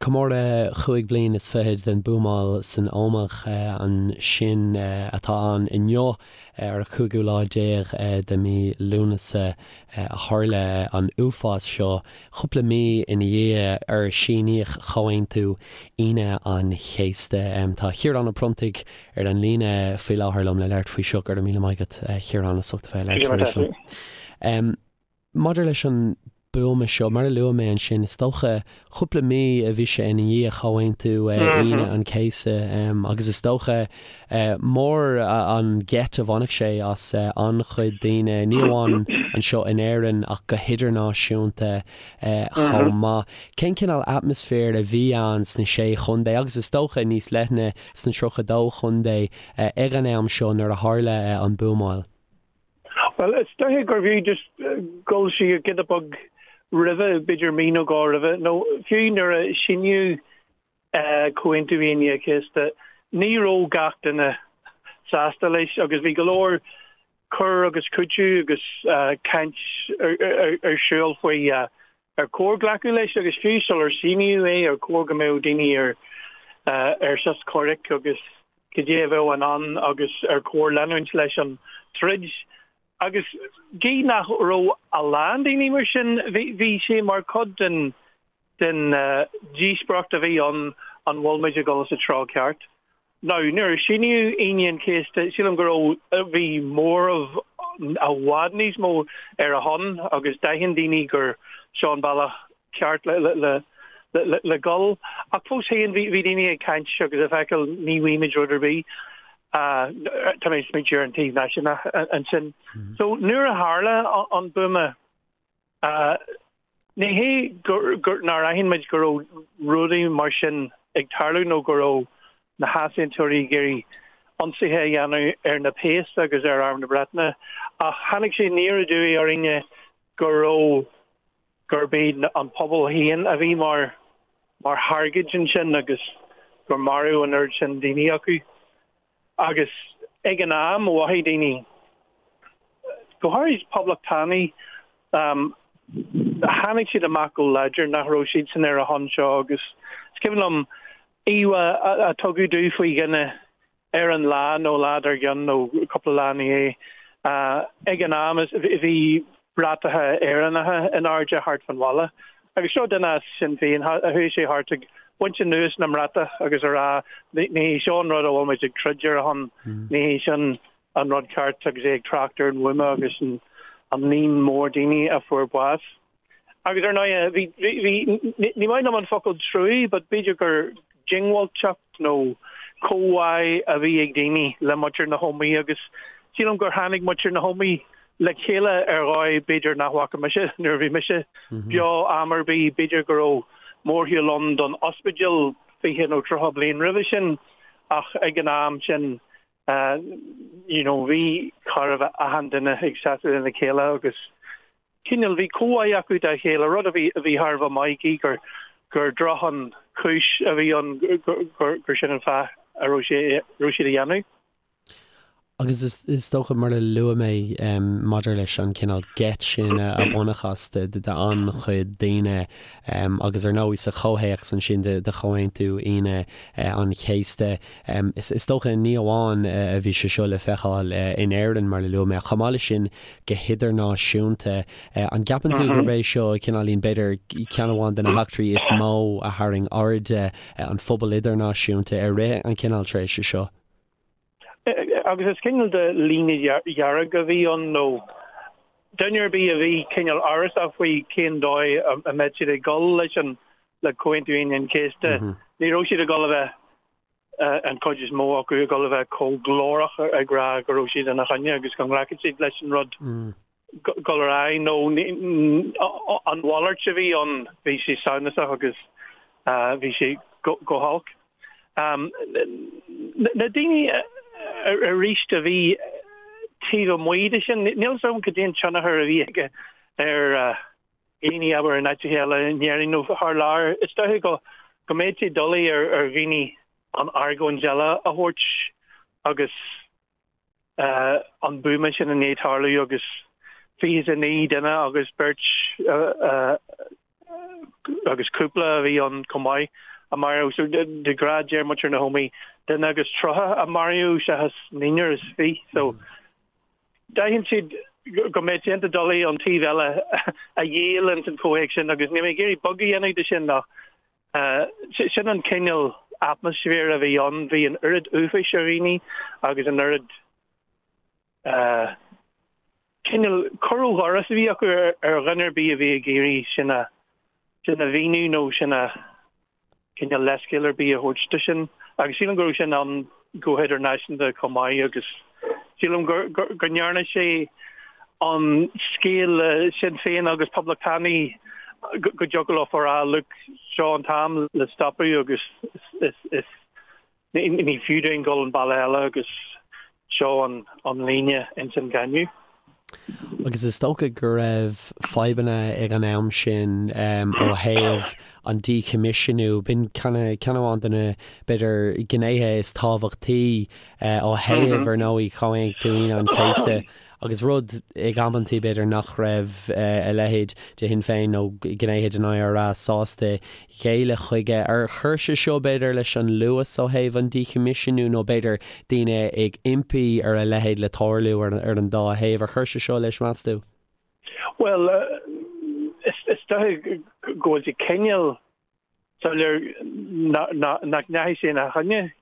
Comóradh chúig bliain is fichead den buamáil san Ómaigh ansin atá ann inniu ar an chúigiú lá déag de mhí Lúnasa a tharla an uafás seo, cúpla mí ina dhiaidh ar síníodh Comhaontú Aoine an Chéasta. Tá Ciarán Ó Pronntaigh ar an líne faoi láthair liom le labhairt faoi seo. Go raibh míle maith agat, a Chiaráin, as ucht a bheith ag labhairt arís liom. Maidir leis an buama seo, mar a luaigh mé ansin, is dócha cúpla mí a bhí sé ina dhiaidh Chomhaontú Aoine an Chéasta agus is dócha mór an gheit a bhainfeadh sé as an-chuid daoine, ní amháin anseo in Éirinn ach go hidirnáisiúnta chomh maith. Cén cineál atmaisféir a bhí ann sna Sé Chontae agus is dócha níos leithne sna 32 Chontae ag an am seo nuair a tharla an buamáil? Bhuel, is dóiche gurbh fhiú just dul siar giota beag roimhe, b'fhéidir mí nó dhó roimhe, nó fiú nuair a síníodh Comhaontú Aoine an Chéasta, ní raibh gach duine sásta leis agus bhí go leor cur agus cúiteamh agus caint ar siúl faoi ar chóir glacadh leis agus fiú sular síníodh é ar chóir go mbeadh daoine ar ar sos comhraic agus cad é a bheadh i ndán agus ar chóir leanúint leis an troid. Agus gidh nach raibh a lán daoine mar sin, bhí sé mar chuid den den díospóireacht a bhí ann an bhfuil muid ag dul sa treo ceart. Now, nuair a síníodh Aoine an Chéasta, sílim go raibh, bhí móramh i bhfad níos mó ar a shon agus d'aithin daoine gur seo an bealach ceart le, le, le, le dhul. Ach fós féin, bhí, bhí daoine ag caint agus ag feiceáil ní bhfaighimid rud ar bith. Tá mé ag smaointiú ar an taobh náisiúnach ansin. So, nuair a tharla an buama, Ní hé gur nár aithin muid go raibh rudaí mar sin ag tarlú nó go raibh na heasaontóirí ag iarraidh ionsaithe a dhéanamh ar na péas agus ar Arm na Breataine ach tháinig sé aniar aduaidh orainne go raibh, gurb iad an pobal féin a bhí mar mar thargaid ansin agus gur maraíodh an oiread sin daoine acu. Agus ag an am, mhothaigh daoine, go háirid poblachtánaigh, tháinig siad amach go láidir nach raibh siadsan ar a shon seo agus is cuimhin liom íomhá a tugadh domh faoi dhuine ar an lá nó lá dár gcionn nó cúpla lá ina dhiaidh. Ag an am bhí bratacha Éireannacha in airde thart fán bhaile. Agus seo duine as Sinn Féin, chuaigh sé thart ag baint anuas na mbratach agus a rá ní hé seo an rud a bhfuil muid ag troid ar a shon, ní hé sin an rud ceart agus é ag trácht ar an bhuama agus an líon mór daoine a fuair bás. Agus ar ndóigh, bhí, bhí, ní maith liom an focal truaí, but b'fhéidir gur diongbháilteacht nó comhbhá a bhí ag daoine le muintir na hÓmaí agus sílim gur tháinig muintir na hÓmaí le chéile ar dhóigh b'fhéidir nach bhfaca mise nuair a bhí mise beo am ar bith. B'fhéidir go raibh mórshiúl ann don ospidéal 20 nó 30 bliain roimhe sin ach ag an am sin you know bhí chóir a bheith achan duine ag seasamh lena chéile agus cineál bhí comhbhá acu dá chéile, rud a bhí a bhí thar a bheith maith gidh gur gur droch an chúis a bhí ann gur gur sin an fáth a raibh sé raibh siad a dhéanamh. Agus is is dócha mar a luaigh mé maidir leis an cineál geit sin a baineadh as de d'an-chuid daoine agus ar ndóigh sa chomhthéacs ansin de de Chomhaontú Aoine an Chéasta is is dócha ní amháin a bhí sé seo le feiceáil in Éirinn mar a luaigh mé ach chomh maith leis sin go hidirnáisiúnta. An gceapann tú gurb é seo cineáilín, b'fhéidir, ceann amháin de na heachtraí is mó a tharraing aird an phobail idirnáisiúnta i rith an cineál tréimhse seo? Agus is cineál de líne dhearg a bhí ann nó duine ar bith a bhí cineál amhrasach faoi cén dóigh a mbeadh siad ag dul leis an le Comhaontú Aoine an Chéasta, ní raibh siad ag dul a bheith an chuid is mó acu ag dul a bheith chomh glórach ag rá go raibh siad ina choinne agus go nglacfadh siad leis an rud dul ar aghaidh nó an mhalairt a bhí ann, bhí sé samhnasach agus bhí sé go holc. Na daoine arís a bhí taobh amuigh de sin, níl 'fhios agam cad é an tionchar a bhí aige ar dhaoine, abair, in áiteacha eile in Éirinn nó thar lear. Is dóiche go go mbeadh sé doiligh ar ar dhaoine an argóint eile a thabhairt agus an buama sin i ndiaidh tarlú agus 29 duine agus beirt agus cúpla a bhí ann chomh maith. a maraíodh. So de ghnáth deir muintir na hÓmaí duine agus 30 a maraíodh seachas naonúr is fiche. So d'aithin siad go mbeadh sé iontach doiligh an taobh eile a dhíol ins an chomhthéacs sin agus níl mé ag iarraidh beag a dhéanamh de sin ach sin an cineál atmaisféir a bhí ann. Bhí an oiread uafáis ar dhaoine agus an oiread cineál cur ó dhoras a bhí acu ar dhuine ar bith a bhí ag iarraidh sin a sin a mhíniú nó sin a cineál leithscéal ar bith a thabhairt do sin. Agus sílim go raibh sin ann go hidirnáisiúnta chomh maith agus sílim go go ndearna sé an scéal le Sinn Féin agus Poblachtánaigh go dtiocfadh leo a rá look seo an t-am le stopadh agus is is Ní fiú dúinn dul an bealach eile agus seo an líne ins an gcáineadh. Agus is dócha go raibh fadhbanna ag an am sin ó thaobh an díchoimisiúnú. B'in ceann amháin de na, b'fhéidir, gnéithe is tábhachtaí ó thaobh, ar ndóigh, Chomhaontú Aoine an Chéasta. Agus rud ag amantaí, b'fhéidir, nach raibh a leithéid de Shinn Féin nó gnéithe den IRA sásta géilleadh chuige. Ar chuir sé seo, b'fhéidir, leis an luas ó thaobh an díchoimisiúnú nó b'fhéidir daoine ag impí ar a leithéid le tarlú ar an dá thaobh? Ar chuir sé seo leis, meas tú? Bhuel, is dóigh go bhfuil sé cineál soiléir nach ndeachaigh sé ina choinne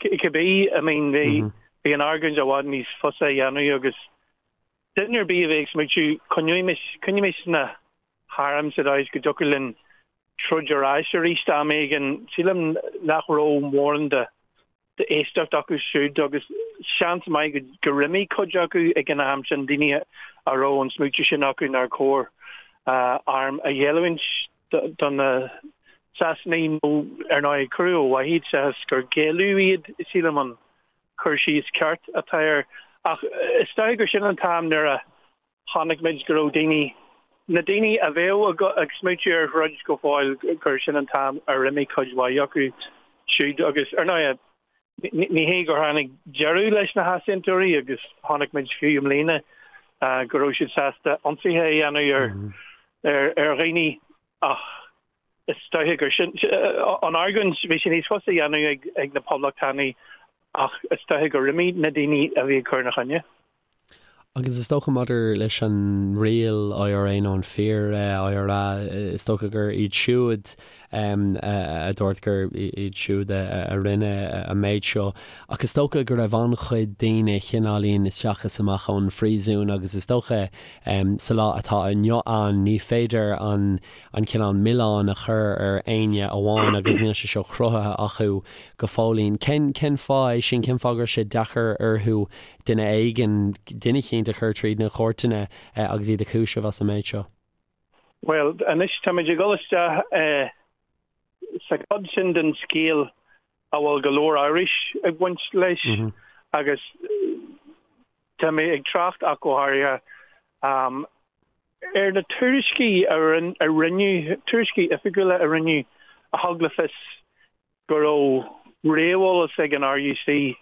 cibé. I mean, bhí an argóint i bhfad níos fusa a dhéanamh agus duine ar bith a bhí ag smaoitiú, coinneoimis, coinnímis na hairm sa dóigh is go dtiocfadh linn troid ar ais arís am éigin. Sílim nach raibh mórán de d'éisteacht acu siúd agus seans maith gur imigh cuid acu ag an am sin, daoine a raibh an smaoitiú sin acu nár chóir airm a ghéilliúint do na Sasanaigh nó ar ndóigh cuireadh ó mhaith iad seachas gur géilleadh iad, sílim an cur síos ceart atá air. Ach is dóigh gur sin an t-am nuair a Chonaic muid go raibh daoine, na daoine a bheadh ag smaoitiú ar throid go fóill, gur sin an t-am ar imigh cuid mhaith acu siúd agus, ar ndóigh, ní hé gur tháinig deireadh leis na heasaontóirí agus chonaic muid fiú i mbliana go raibh siad sásta ionsaithe a dhéanamh ar ar dhaoine ach is dóiche gur sin an argóint, bhí sé níos fusa a dhéanamh ag na Poblachtánaigh ach is dóiche gur imigh na daoine a bhí ag cur ina choinne. Agus is dócha maidir leis an Real IRA nó an Fíor IRA, is dócha gur iad siúd a dúirt gur iad siúd a rinne an méid seo. Ach is dócha go raibh an-chuid daoine chineáilín isteach is amach ón phríosún agus is dócha sa lá atá inniu ann ní féidir an an cineál milleán a chur ar éinne amháin agus níl sé seo cruthaithe acu go fóillín. Cén cén fáth é sin? Cén fáth go raibh sé deacair orthu duine éigin, duine eicínt a chur tríd na cúirteanna agus iad a chúiseamh as an méid seo? Bhuel, anois táimid ag dul isteach sa chuid sin den scéal a bhfuil go leor amhrais ag baint leis agus tá mé ag trácht ach go háirithe Ar na tuairiscí a rinneadh, tuairiscí oifigiúla a rinneadh a thug le fios go raibh réamheolas ag an RUC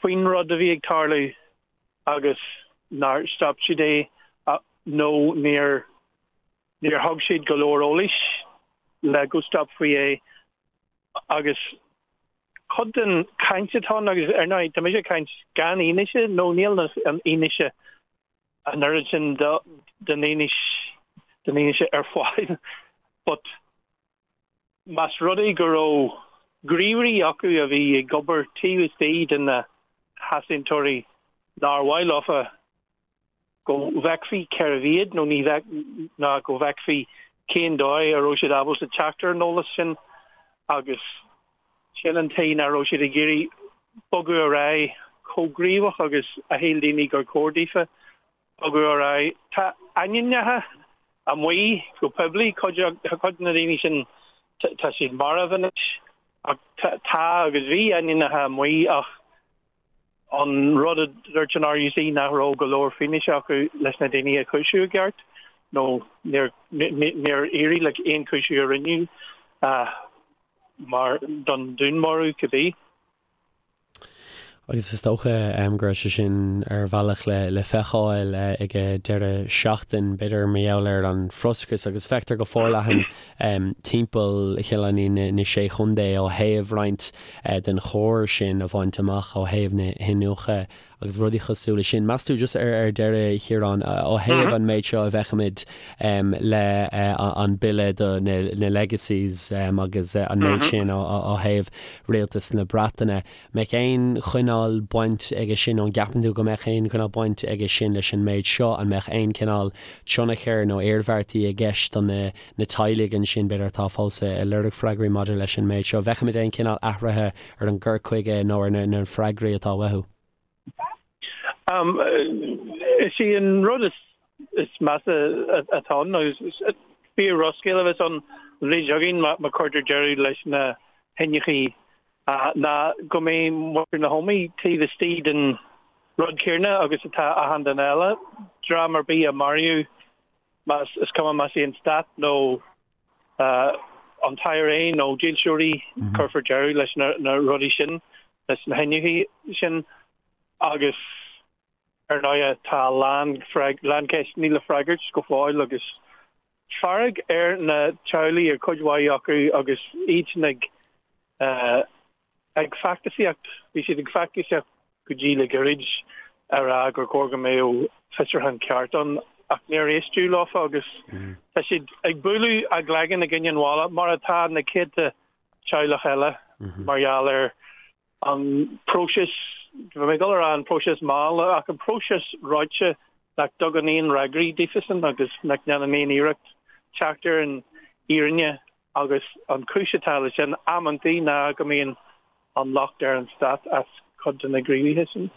faoin rud a bhí ag tarlú agus nár stop siad é nó níor níor thug siad go leor eolais le go stopfaí é agus cuid den chaint atá ann agus ar ndóigh tá mise ag caint gan fhianaise nó níl an fhianaise an oiread sin den fhianaise ar fáil but más rud é go raibh gníomhairí acu a bhí ag obair taobh istigh de na heasaontóirí nár mhaith leofa go bhfeicfí cérbh iad nó ní bheadh ná go bhfeicfí cén dóigh a raibh siad ábalta teacht ar an eolas sin agus Sin an tuige nach raibh siad ag iarraidh bogadh ar aghaidh chomh gníomhach agus a shíl daoine gur chóir daofa bogadh ar aghaidh. Tá ainmneacha amuigh go poiblí, cuid de na daoine sin tá siad marbh anois, ach tá agus bhí ainmneacha amuigh ach an rud a dúirt an RUC nach raibh go leor fianaise acu leis na daoine a chúiseamh i gceart nó níor éirigh le aon chúiseamh a rinneadh mar don dúnmharú cibé. Agus is dócha go raibh sé sin ar bhealach le feiceáil ag an deireadh seachtain, b'fhéidir mar gheall ar an bhfrustrachas agus feictear go forleathan timpeall chineál na Sé Chontae ó thaobh roinnt den chóir sin a bhaint amach ó thaobh na hiniúchadh agus rudaí cosúil leis sin. Meas tú, just ar deireadh, a Chiaráin, ó thaobh an méid seo a bhfeicimid le an bille do na legacies agus an méid sin ó thaobh rialtas na Breataine, mbeadh aon chineál baint aige sin, nó an gceapann tú go mbeadh aon chineál baint aige sin leis an méid seo? An mbeadh aon chineál tionchair nó iarmhairtí i gceist do na teaghlaigh ansin, b'fhéidir, atá fós ag lorg freagraí maidir leis an méid seo? Bhfeicfimid aon chineál athraithe ar an gcur chuige nó ar na freagraí atá uathu? Is é an rud is measa atá ann, agus fíor-dhrochscéal a bheas ann an bhliain seo chugainn má chuirtear deireadh leis na hiniúchtaí, ná go mbeidh muintir na hÓmaí taobh istigh den rud céanna agus atá achan duine eile, dream ar bith a maraíodh, más, is cuma más é an stát nó an t-IRA nó dílseoirí, cuirfear deireadh leis na rudaí sin, leis na hiniúchtaí sin agus ar ndóigh tá a lán, lán ceisteanna le freagairt go fóill agus fearg ar na teaghlaigh, ar chuid mhaith acu agus iadsan ag ag feachtasaíocht, bhí siad ag feachtasaíocht go dtí le gairid a rá gur chóir go mbeadh fiosrúchán ceart ann ach níor éisteadh leofa agus tá siad ag bualadh a gcloigeann i gcoinne an bhalla mar atá na céadta teaghlach eile mar gheall ar an próiseas, bhí mé ag dul a rá an próiseas mall ach an próiseas reoite nach dtugann aon fhreagraí daofasan agus nach ndéanann aon iarracht teacht ar an fhírinne Agus an chúis atá leis sin amantaí ná go mbíonn an locht ar an stát as cuid de na gníomhartha sin.